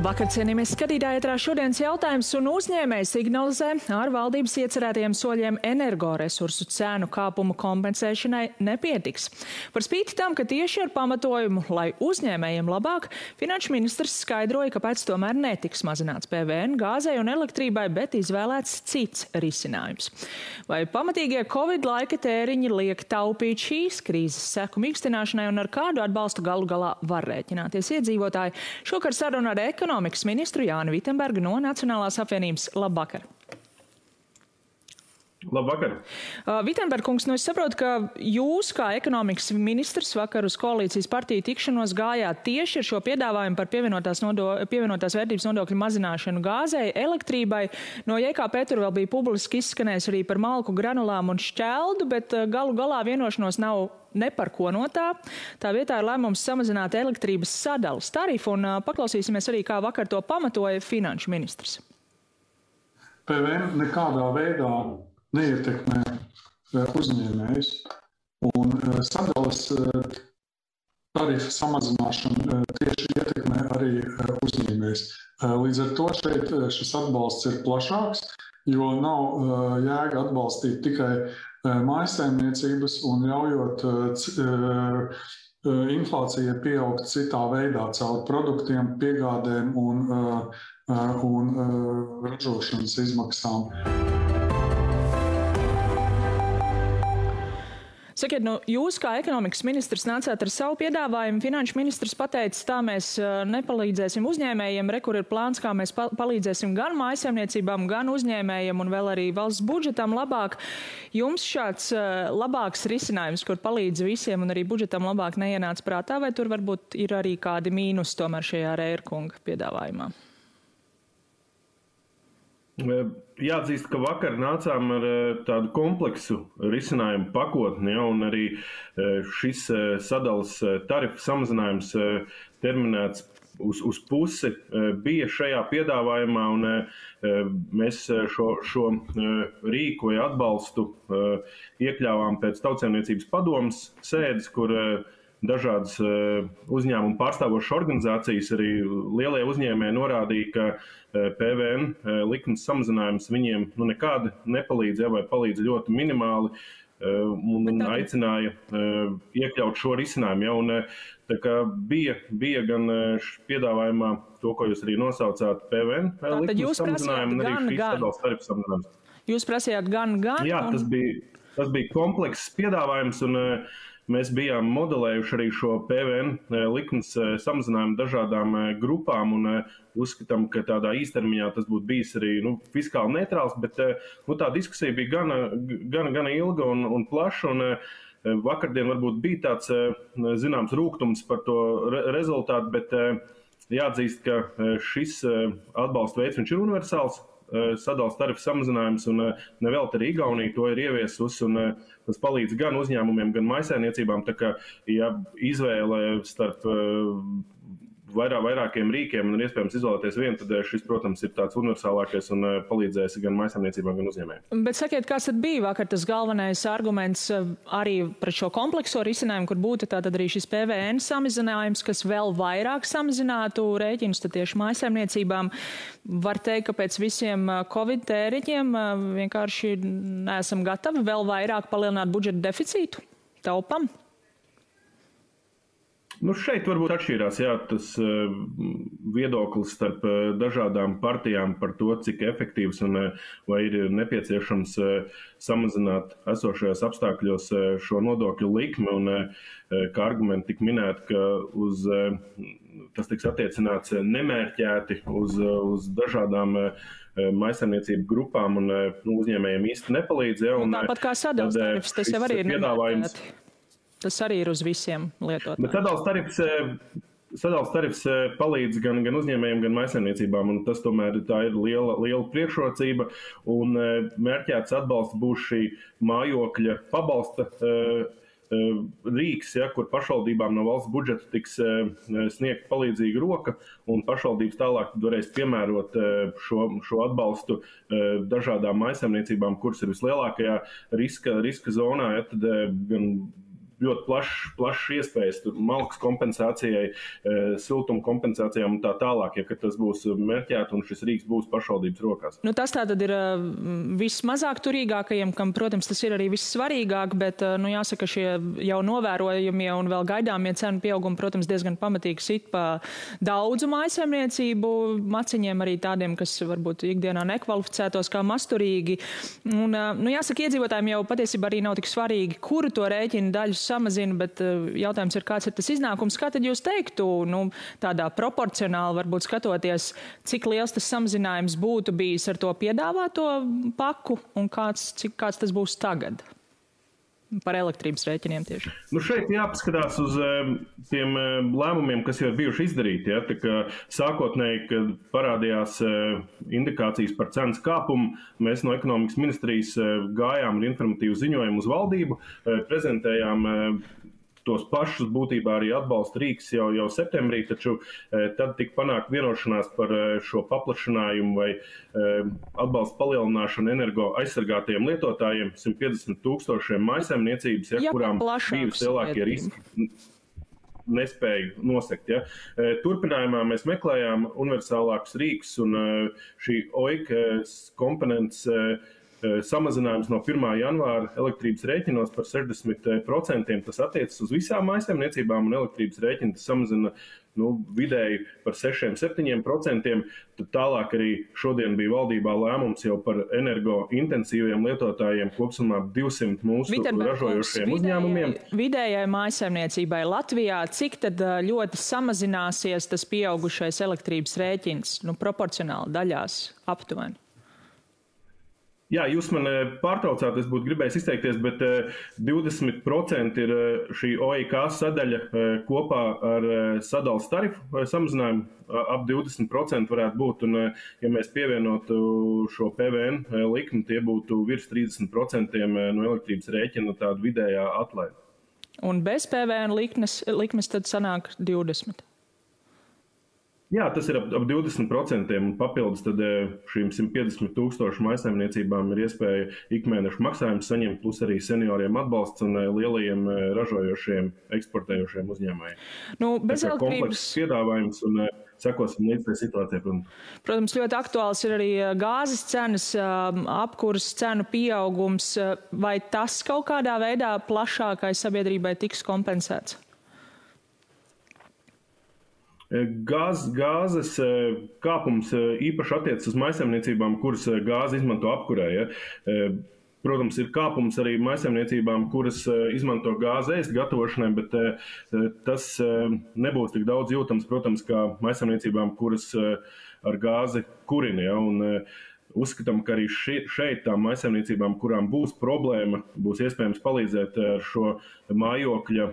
Labvakar, cienījamies skatītāji, ētrā šodienas jautājums un uzņēmēji signalizē ar valdības iecerētajiem soļiem energoresursu cēnu kāpumu kompensēšanai nepietiks. Par spīti tam, ka tieši ar pamatojumu, lai uzņēmējiem labāk, finanšu ministrs skaidroja, kāpēc tomēr netiks mazināts PVN gāzei un elektrībai, bet izvēlēts cits risinājums. Vai pamatīgie Covid laika tēriņi liek taupīt šīs krīzes seku mīkstināšanai un ar kādu atbalstu galu galā var rēķināties iedzīvotāji? Šokar saruna ar ekonomikas ministru Jāni Vitenbergu no Nacionālās apvienības. Labvakar! Labvakar! Vitenberg kungs, es saprotu, ka jūs kā ekonomikas ministrs vakar uz koalīcijas partiju tikšanos gājāt tieši ar šo piedāvājumu par pievienotās vērtības nodokļu mazināšanu gāzei, elektrībai. No JKP tur vēl bija publiski izskanējis arī par malku, granulām un šķeldu, bet galu galā vienošanos nav ne par ko no tā. Tā vietā ir lēmums samazināt elektrības sadalas tarifu, un paklausīsimies arī, kā vakar to pamatoja finanšu ministrs. PVN nekādā veidā neietekmē uzņēmējus, un sadalas tarifa samazināšana tieši ietekmē arī uzņēmējus. Līdz ar to šeit šis atbalsts ir plašāks, jo nav jēga atbalstīt tikai mājsaimniecības un ļaujot inflācija pieaugt citā veidā caur produktiem, piegādēm un ražošanas izmaksām. Sakiet, jūs kā ekonomikas ministrs nācāt ar savu piedāvājumu. Finanšu ministrs pateica, tā mēs nepalīdzēsim uzņēmējiem, kur ir plāns, kā mēs palīdzēsim gan mājsaimniecībām, gan uzņēmējiem un vēl arī valsts budžetam labāk. Jums šāds labāks risinājums, kur palīdz visiem un arī budžetam labāk neienāca prātā, vai tur varbūt ir arī kādi mīnus tomēr šajā Rērkunga piedāvājumā? Jāatzīst, ka vakar nācām ar tādu kompleksu risinājumu pakotni, un arī šis sadalas tarifu samazinājums terminēts uz pusi bija šajā piedāvājumā, un mēs šo rīku vai atbalstu iekļāvām pēc Tautsaimniecības padomes sēdes, kur dažādas uzņēmumu pārstāvošas organizācijas, arī lielie uzņēmēji norādīja, ka PVN likums samazinājums viņiem nekādi nepalīdz, vai palīdz ļoti minimāli, un aicināja iekļaut šo risinājumu. Un, tā kā bija gan piedāvājumā to, ko jūs arī nosaucāt, PVN likums samazinājumu, un arī šīs sadalas tarifu samazinājums. Jūs prasījāt gan? Jā, tas bija komplekss piedāvājums, un mēs bijām modelējuši arī šo PVN likums samazinājumu dažādām grupām un uzskatām, ka tādā īstermiņā tas būtu bijis arī fiskāli neitrāls, bet tā diskusija bija gana ilga un plaša, un vakardien varbūt bija tāds zināms rūgtums par to rezultātu, bet jāatzīst, ka šis atbalsta veids viņš ir universāls. Sadalas tarifu samazinājums, un nevelti arī Igaunija to ir ieviesusi, un tas palīdz gan uzņēmumiem, gan mājsaimniecībām. Tā kā, ja izvēle starp vairākiem rīkiem un iespējams izvēlēties vienu, tad šis, protams, ir tāds universālākais un palīdzēs gan mājsaimniecībām, gan uzņēmējiem. Bet sakiet, kāds tad bija vakar tas galvenais arguments arī par šo komplekso risinājumu, kur būtu tātad arī šis PVN samazinājums, kas vēl vairāk samazinātu rēķinus tad tieši mājsaimniecībām? Var teikt, ka pēc visiem Covid tēriņiem vienkārši neesam gatavi vēl vairāk palielināt budžeta deficītu? Taupam? Šeit varbūt atšķīrās tas viedoklis starp dažādām partijām par to, cik efektīvs un vai ir nepieciešams samazināt esošajos apstākļos šo nodokļu likmi. Un kā argumenti tika minēti, ka tas tiks attiecināts nemērķēti uz dažādām mājsaimniecību grupām un uzņēmējiem īsti nepalīdz. Tāpat kā sadalas tarifs, tas jau arī ir nemērķēti. Tas arī ir uz visiem lietotājiem. Bet sadalas tarifs palīdz gan uzņēmējiem, gan mājsaimniecībām, un tas tomēr tā ir liela priekšrocība. Un mērķēts atbalsts būs šī mājokļa pabalsta rīks, kur pašvaldībām no valsts budžeta tiks sniegt palīdzīga roka, un pašvaldības tālāk varēs piemērot šo atbalstu dažādām mājsaimniecībām, kuras ir vislielākajā riska zonā, tad gan ļoti plašs iespējas malkas kompensācijai, siltuma kompensācijām un tā tālāk, ja tas būs mērķēts un šis rīks būs pašvaldības rokās. Nu, tas tātad ir vismazāk turīgākajiem, kam, protams, tas ir arī vissvarīgāk, bet jāsaka, šie jau novērojamie un vēl gaidāmie cenu pieaugumi, protams, diezgan pamatīgi sit pa daudzu mājsaimniecību maciņiem, arī tādiem, kas varbūt ikdienā nekvalificētos kā masturīgi. Un, jāsaka, iedzīvotājiem jau patiesībā arī nav tik svarīgi, kuru to rēķinu daļu samazina, bet jautājums ir, kāds ir tas iznākums. Kā tad jūs teiktu, tādā proporcionāli varbūt skatoties, cik liels tas samazinājums būtu bijis ar to piedāvāto paku un kāds tas būs tagad? Par elektrības rēķiniem tieši. Šeit jāpaskatās uz tiem lēmumiem, kas jau ir bijuši izdarīti. Ja? Tā kā sākotnēji, kad parādījās indikācijas par cenas kāpumu, mēs no ekonomikas ministrijas gājām ar informatīvu ziņojumu uz valdību, prezentējām tos pašus būtībā arī atbalsta rīks jau septembrī, taču tad tika panākt vienošanās par šo paplašinājumu vai atbalsta palielināšanu energo aizsargātajiem lietotājiem, 150,000 mājsaimniecības, kurām bija lielākie riski nespēju nosegt. Ja. Turpinājumā mēs meklējām universālākus rīkus un šī OIK komponents samazinājums no 1. janvāra elektrības rēķinos par 60%. Tas attiecas uz visām mājsaimniecībām un elektrības rēķini tas samazina vidēji par 6–7%. Tad tālāk arī šodien bija valdībā lēmums jau par energointensīviem lietotājiem kopsumā 200 mūsu ražojošiem uzņēmumiem. Vidējai mājsaimniecībai Latvijā, cik tad ļoti samazināsies tas pieaugušais elektrības rēķins, proporcionāli daļās aptuveni? Jā, jūs man pārtraucāt, es būtu gribējis izteikties, bet 20% ir šī OIK sadaļa kopā ar sadales tarifu samazinājumu. Ap 20% varētu būt, un ja mēs pievienotu šo PVN likmi, tie būtu virs 30% no elektrības rēķina tāda vidējā atlaide. Un bez PVN likmes tad sanāk 20%? Jā, tas ir ap 20%, un papildus tad šīm 150,000 mājsaimniecībām ir iespēja ikmēnešu maksājumus saņemt, plus arī senioriem atbalsts un lielajiem ražojošiem, eksportējošiem uzņēmējiem. Bez elektrības komplekss piedāvājums un sekosim līdz tai situācijai. Protams, ļoti aktuāls ir arī gāzes cenas, apkuras cenu pieaugums. Vai tas kaut kādā veidā plašākai sabiedrībai tiks kompensēts? Gāzes kāpums īpaši attiecas uz mājsaimniecībām, kuras gāzi izmanto apkurē. Ja? Protams, ir kāpums arī mājsaimniecībām, kuras izmanto gāzi ēst gatavošanai, bet tas nebūs tik daudz jūtams, protams, kā mājsaimniecībām, kuras ar gāzi kurina. Ja? Un uzskatām, ka arī šeit tām mājsaimniecībām, kurām būs problēma, būs iespējams palīdzēt ar šo mājokļa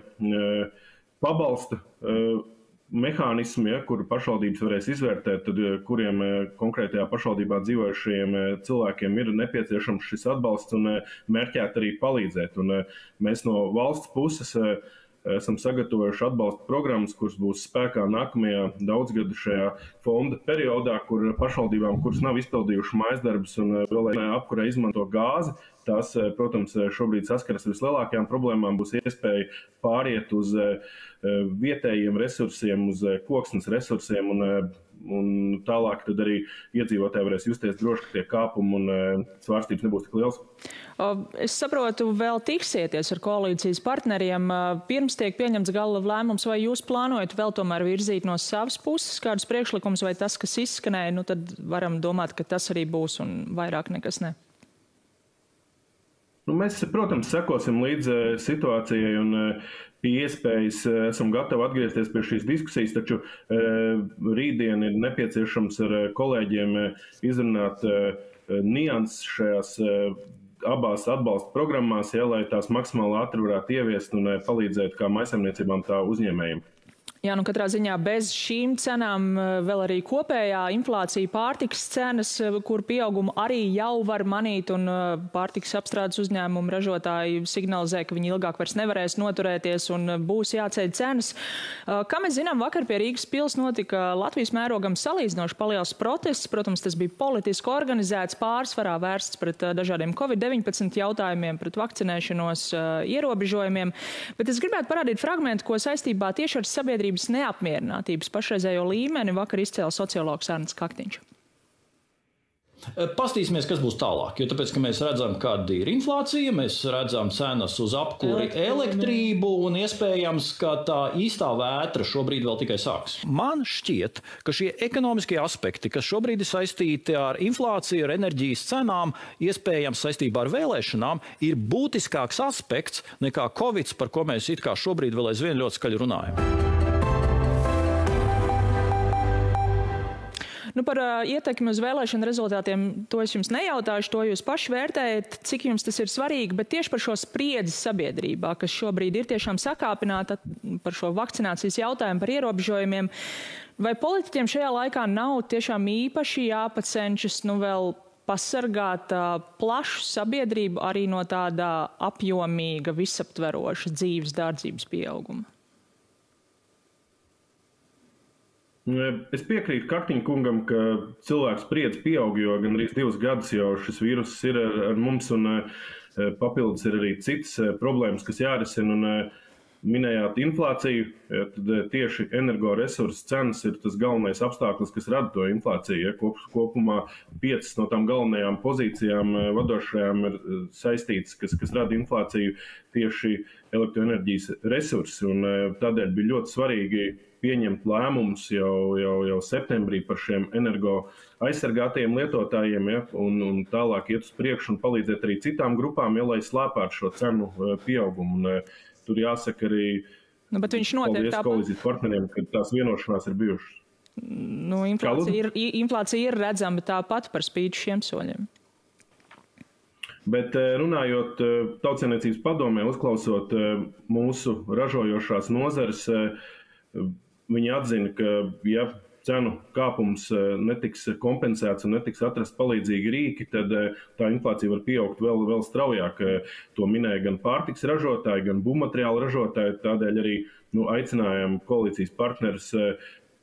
pabalsta mehānismu, kuru pašvaldības varēs izvērtēt, tad kuriem konkrētajā pašvaldībā dzīvojušajiem cilvēkiem ir nepieciešams šis atbalsts un mērķēt arī palīdzēt. Un mēs no valsts puses esam sagatavojuši atbalsta programmas, kuras būs spēkā nākamajā daudzgadu šajā fonda periodā, kur pašvaldībām, kuras nav izpildījuši mājasdarbus un vēl apkurē izmanto gāzi, tās, protams, šobrīd saskaras vislielākajām problēmām, būs iespēja pāriet uz vietējiem resursiem, uz koksnes resursiem un tālāk tad arī iedzīvotāji varēs justies droši, ka tie kāpumi un svārstības nebūs tik liels. Es saprotu, vēl tiksieties ar koalīcijas partneriem. Pirms tiek pieņemts gala lēmums, vai jūs plānojat vēl tomēr virzīt no savas puses kādus priekšlikumus, vai tas, kas izskanēja, tad varam domāt, ka tas arī būs un vairāk nekas ne? Mēs, protams, sekosim līdz situācijai un pie iespējas esam gatavi atgriezties pie šīs diskusijas, taču rītdien ir nepieciešams ar kolēģiem izrunāt nianses šajās abās atbalsta programmās, lai tās maksimāli ātri varētu ieviest un palīdzēt kā mājsaimniecībām, tā uzņēmējiem. Jā, nu katrā ziņā bez šīm cenām vēl arī kopējā inflācija, pārtikas cenas, kur pieaugumu arī jau var manīt, un pārtikas apstrādes uzņēmumu ražotāji signalizē, ka viņi ilgāk vairs nevarēs noturēties un būs jāceļ cenas. Kā mēs zinām, vakar pie Rīgas pils notika Latvijas mērogam salīdzinoši paliels protests. Protams, tas bija politiski organizēts, pārsvarā vērsts pret dažādiem Covid-19 jautājumiem, pret vakcinēšanos ierobežojumiem. Bet es gribētu parādīt fragmentu, ko saistībā tieši ar sabiedrību neapmierinātības pašreizējo līmeni vakar izcēla sociologs Arnis Kaktiņš. Pastīsimies, kas būs tālāk, jo tāpēc, ka mēs redzam, kāda ir inflācija, mēs redzam cenas uz apkuri, elektrību un iespējams, ka tā īstā vētra šobrīd vēl tikai sāks. Man šķiet, ka šie ekonomiskie aspekti, kas šobrīd ir saistīti ar inflāciju, ar enerģijas cenām, iespējams saistībā ar vēlēšanām, ir būtiskāks aspekts nekā Covid, par ko mēs it kā šobrīd vēl aizvien ļoti skaļi runājam. Nu, par ietekmi uz vēlēšanu rezultātiem to es jums nejautāšu, to jūs paši vērtējat, cik jums tas ir svarīgi, bet tieši par šo spriedzi sabiedrībā, kas šobrīd ir tiešām sakāpināta par šo vakcinācijas jautājumu, par ierobežojumiem, vai politiķiem šajā laikā nav tiešām īpaši jāpacenšas vēl pasargāt plašu sabiedrību arī no tāda apjomīga, visaptveroša dzīves dārdzības pieauguma? Es piekrītu Kaktiņa kungam, ka cilvēks spriedze pieaug, jo gan arī 2 gadus jau šis vīrus ir ar mums, un papildus ir arī citas problēmas, kas jārisina. Un minējāt inflāciju, tad tieši energoresursu cenas ir tas galvenais apstākļus, kas rada to inflāciju. Kopumā 5 no tām galvenajām pozīcijām vadošajām ir saistītas, kas rada inflāciju, tieši elektroenerģijas resursi. Un tādēļ bija ļoti svarīgi pieņemt lēmumus jau septembrī par šiem energo aizsargātajiem lietotājiem, un tālāk iet uz priekšu un palīdzēt arī citām grupām, lai slēpētu šo cenu pieaugumu. Un tur jāsaka arī bet viņš notiek tāpat. Koalīcijas partneriem, ka tās vienošanās ir bijušas. Inflācija ir redzama tāpat par spīti šiem soļiem. Bet runājot Tautsaimniecības padomē, uzklausot mūsu ražojošās nozares, viņi atzina, ka ja cenu kāpums netiks kompensēts un netiks atrast palīdzīgi rīki, tad tā inflācija var pieaugt vēl straujāk. To minēja gan pārtiks ražotāji, gan būvmateriālu ražotāji. Tādēļ arī aicinājām koalīcijas partnerus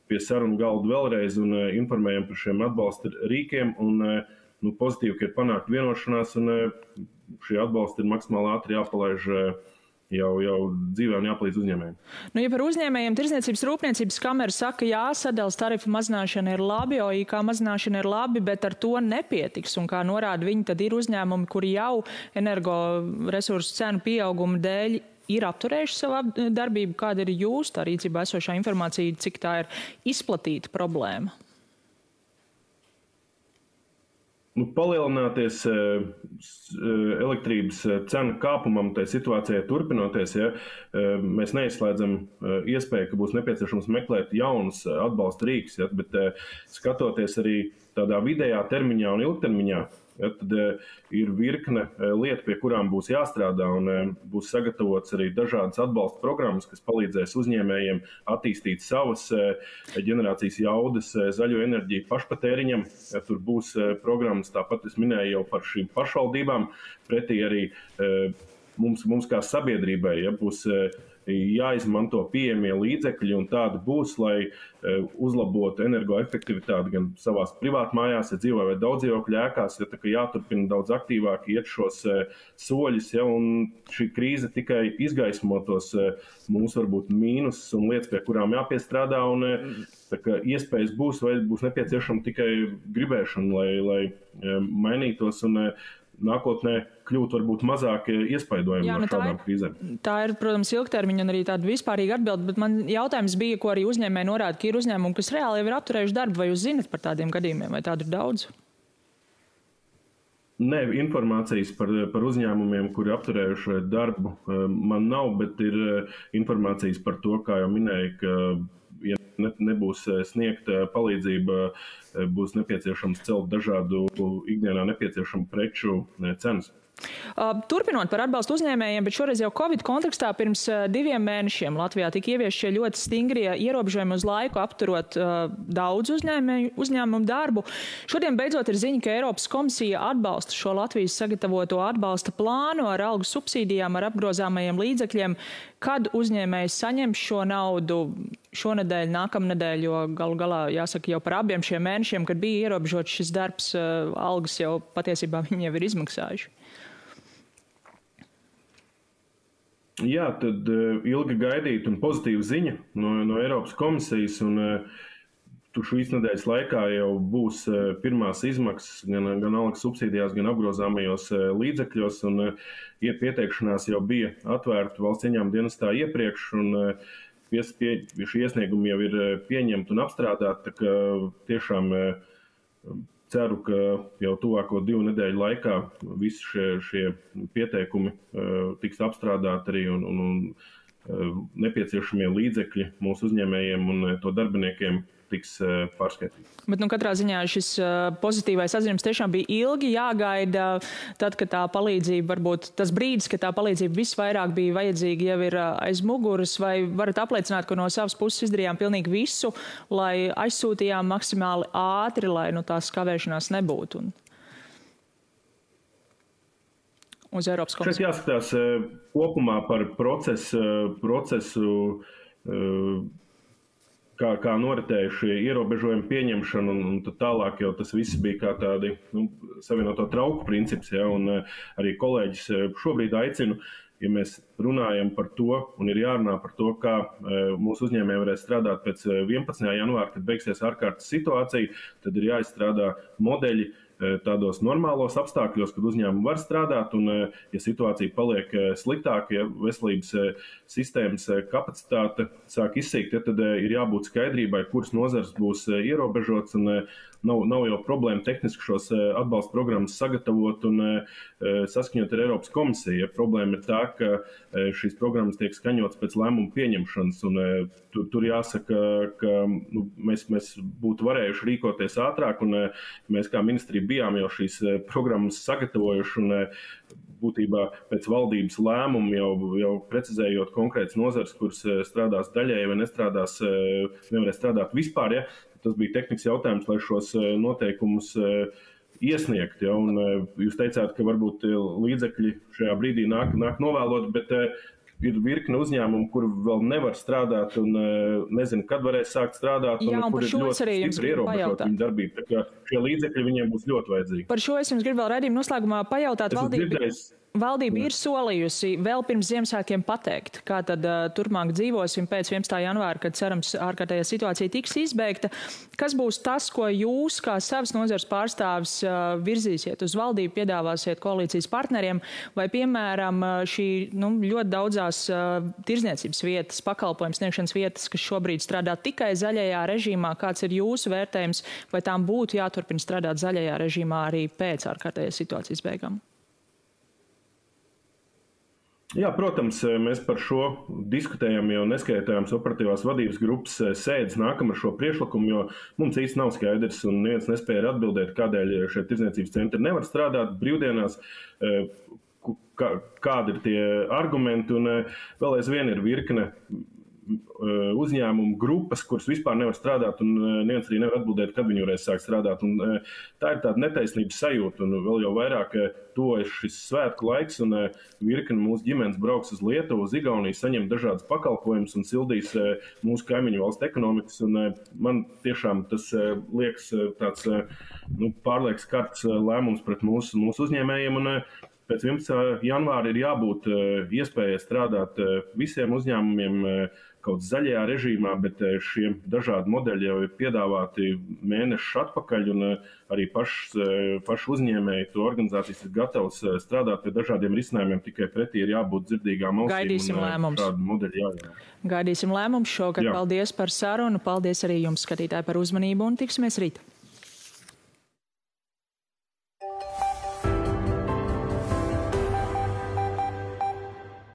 pie sarunu galda vēlreiz un informējam par šiem atbalsta rīkiem. Un pozitīvi, ka ir panākt vienošanās, un šie atbalsti ir maksimāli ātri jāpalaiž jau dzīvē un jāpalīdz uzņēmējiem. Ja par uzņēmējiem Tirdzniecības rūpniecības kamera saka, jā, sadales tarifu mazināšana ir labi, OIK mazināšana ir labi, bet ar to nepietiks. Un kā norāda viņi, tad ir uzņēmumi, kuri jau energoresursu cenu pieauguma dēļ ir apturējuši savu darbību. Kāda ir jūsu tā rīcībā esošā informācija, cik tā ir izplatīta problēma? Palielināties elektrības cenu kāpumam, tai situācijai turpinoties, mēs neizslēdzam iespēju, ka būs nepieciešams meklēt jaunus atbalsta rīkus, bet skatoties arī tādā vidējā termiņā un ilgtermiņā, tad ir virkne lietu, pie kurām būs jāstrādā, un būs sagatavots arī dažādas atbalsta programmas, kas palīdzēs uzņēmējiem attīstīt savas ģenerācijas jaudas zaļo enerģiju pašpatēriņam. Tur būs programmas, tāpat es minēju jau par šīm pašvaldībām, pretī arī mums kā sabiedrībai būs jāizmanto pieejamie līdzekļi, un tāda būs, lai uzlabotu energoefektivitāti gan savās privātmājās, ja dzīvo vai daudzdzīvokļu ēkās, tā kā jāturpina daudz aktīvāk iet šos soļus, un šī krīze tikai izgaismotos mūsu varbūt mīnusus un lietas, pie kurām jāpiestrādā, un tā kā iespējas būs, vai būs nepieciešama tikai gribēšana, lai mainītos un nākotnē kļūt varbūt mazāk iespaidojami no šādām krīzēm. Tā ir, protams, ilgtermiņa un arī tāda vispārīga atbilde, bet man jautājums bija, ko arī uzņēmēji norāda, ka ir uzņēmumi, kas reāli jau ir apturējuši darbu, vai jūs zinat par tādiem gadījumiem, vai tādu ir daudz? Nē, informācijas par uzņēmumiem, kuri apturējuši darbu, man nav, bet ir informācijas par to, kā jau minēju, ka ja nebūs sniegta palīdzība, būs nepieciešams celt dažādu ikdienā nepieciešamu preču cenas. Turpinot par atbalstu uzņēmējiem, bet šoreiz jau Covid kontekstā pirms 2 mēnešiem Latvijā tika ieviesti šie ļoti stingrie ierobežojumi uz laiku, apturot daudz uzņēmumu darbu. Šodien beidzot ir ziņa, ka Eiropas komisija atbalsta šo Latvijas sagatavoto atbalsta plānu ar algu subsīdijām, ar apgrozāmajiem līdzekļiem. Kad uzņēmējs saņems šo naudu šonedēļ, nākamnedēļ, jo galu galā jāsaka jau par abiem šiem mēnešiem, kad bija ierobežots šis darbs, algas jau patiesībā viņi jau ir izmaksājuši. Jā, tad ilgi gaidīta un pozitīva ziņa no Eiropas komisijas, un šīs nedēļas laikā jau būs pirmās izmaksas gan algas subsīdijās, gan apgrozāmajos līdzekļos, un pieteikšanās jau bija atvērta valsts ieņēmuma dienestā iepriekš, un šie iesniegumi jau ir pieņemti un apstrādāti, tā ka tiešām ceru, ka jau tuvāko 2 nedēļu laikā visi šie pieteikumi tiks apstrādāti arī un nepieciešamie līdzekļi mūsu uzņēmējiem un to darbiniekiem tiks pārskaitīti. Bet katrā ziņā šis pozitīvais atzinums tiešām bija ilgi jāgaida, tad, kad tā palīdzība, varbūt tas brīdis, kad tā palīdzība visvairāk bija vajadzīga, jau ir aiz muguras, vai varat apliecināt, ka no savas puses izdarījām pilnīgi visu, lai aizsūtījām maksimāli ātri, lai tās kavēšanās nebūtu? Uz Eiropas komisiju. Šeit jāskatās kopumā par procesu kā noritēja šie ierobežojumi pieņemšana, un tad tālāk jau tas viss bija kā tādi savienoto trauku princips, ja, un arī kolēģis šobrīd aicinu, ja mēs runājam par to, un ir jārunā par to, kā mūsu uzņēmēji varēs strādāt pēc 11. janvāra, kad beigsies ārkārtas situācija, tad ir jāizstrādā modeļi tādos normālos apstākļos, kad uzņēmumi var strādāt, un ja situācija paliek sliktāka, ja veselības sistēmas kapacitāte sāk izsīkt, tad ir jābūt skaidrībai, kuras nozars būs ierobežots, un nav jau problēma tehniski šos atbalsta programmas sagatavot un saskaņot ar Eiropas komisiju. Ja problēma ir tā, ka šīs programmas tiek skaņotas pēc lēmumu pieņemšanas, un tur jāsaka, ka mēs būtu varējuši rīkoties ātrāk, un mēs kā ministrija bijām jau šīs programmas sagatavojuši, un būtībā pēc valdības lēmumu jau precizējot konkrētas nozars, kuras strādās daļēji vai nevarēs strādāt vispār, ja? Tas bija tehnikas jautājums, lai šos noteikumus iesniegt. Ja? Un jūs teicāt, ka varbūt līdzekļi šajā brīdī nāk novēlot, bet ir virkne uzņēmumu, kur vēl nevar strādāt un nezinu, kad varēs sākt strādāt, un kur ir ļoti stipri ierobežot viņu darbību. Tā kā šie līdzekļi viņiem būs ļoti vajadzīgi. Par šo es jums gribu vēl raidījuma noslēgumā pajautāt. Valdība ir solījusi vēl pirms Ziemassvētkiem pateikt, kā tad turpmāk dzīvosim pēc 11. janvāra, kad cerams ārkārtējā situācija tiks izbeigta. Kas būs tas, ko jūs kā savas nozares pārstāvis virzīsiet uz valdību, piedāvāsiet koalīcijas partneriem, vai piemēram šī ļoti daudzās tirdzniecības vietas, pakalpojums sniegšanas vietas, kas šobrīd strādā tikai zaļajā režīmā, kāds ir jūsu vērtējums, vai tām būtu jāturpina strādāt zaļajā režīmā arī pēc ārkārtējās situācijas beigām? Jā, protams, mēs par šo diskutējam, jo neskaitājams operatīvās vadības grupas sēdes nākam ar šo priekšlikumu, jo mums īsti nav skaidrs un neviens nespēja atbildēt, kādēļ šie tirdzniecības centri nevar strādāt brīvdienās, kādi ir tie argumenti, un vēl aizvien ir virkne uzņēmumu grupas, kuras vispār nevar strādāt, un neviens arī nevar atbildēt, kad viņi varēs sākt strādāt. Un tā ir tāda netaisnības sajūta, un vēl jau vairāk tuvojas šis svētku laiks, un virkni mūsu ģimenes brauks uz Lietuvu, uz Igauniju, saņem dažādas pakalpojumus un sildīs mūsu kaimiņu valstu ekonomikas. Un man tiešām tas liekas tāds pārliekas karts lēmums pret mūsu uzņēmējiem, un pēc 11. janvāra ir jābūt iespējai strādāt visiem uzņēmumiem kaut zaļajā režīmā, bet šie dažādi modeļi jau ir piedāvāti mēnešus atpakaļ, un arī paši uzņēmēji, to organizācijas ir gatavs strādāt pie dažādiem risinājumiem, tikai pretī ir jābūt dzirdīgām ausīm. Gaidīsim lēmums. Šādi modeļi jāiet. Gaidīsim lēmums šogad. Paldies par sarunu, paldies arī jums, skatītāji, par uzmanību, un tiksimies rīt.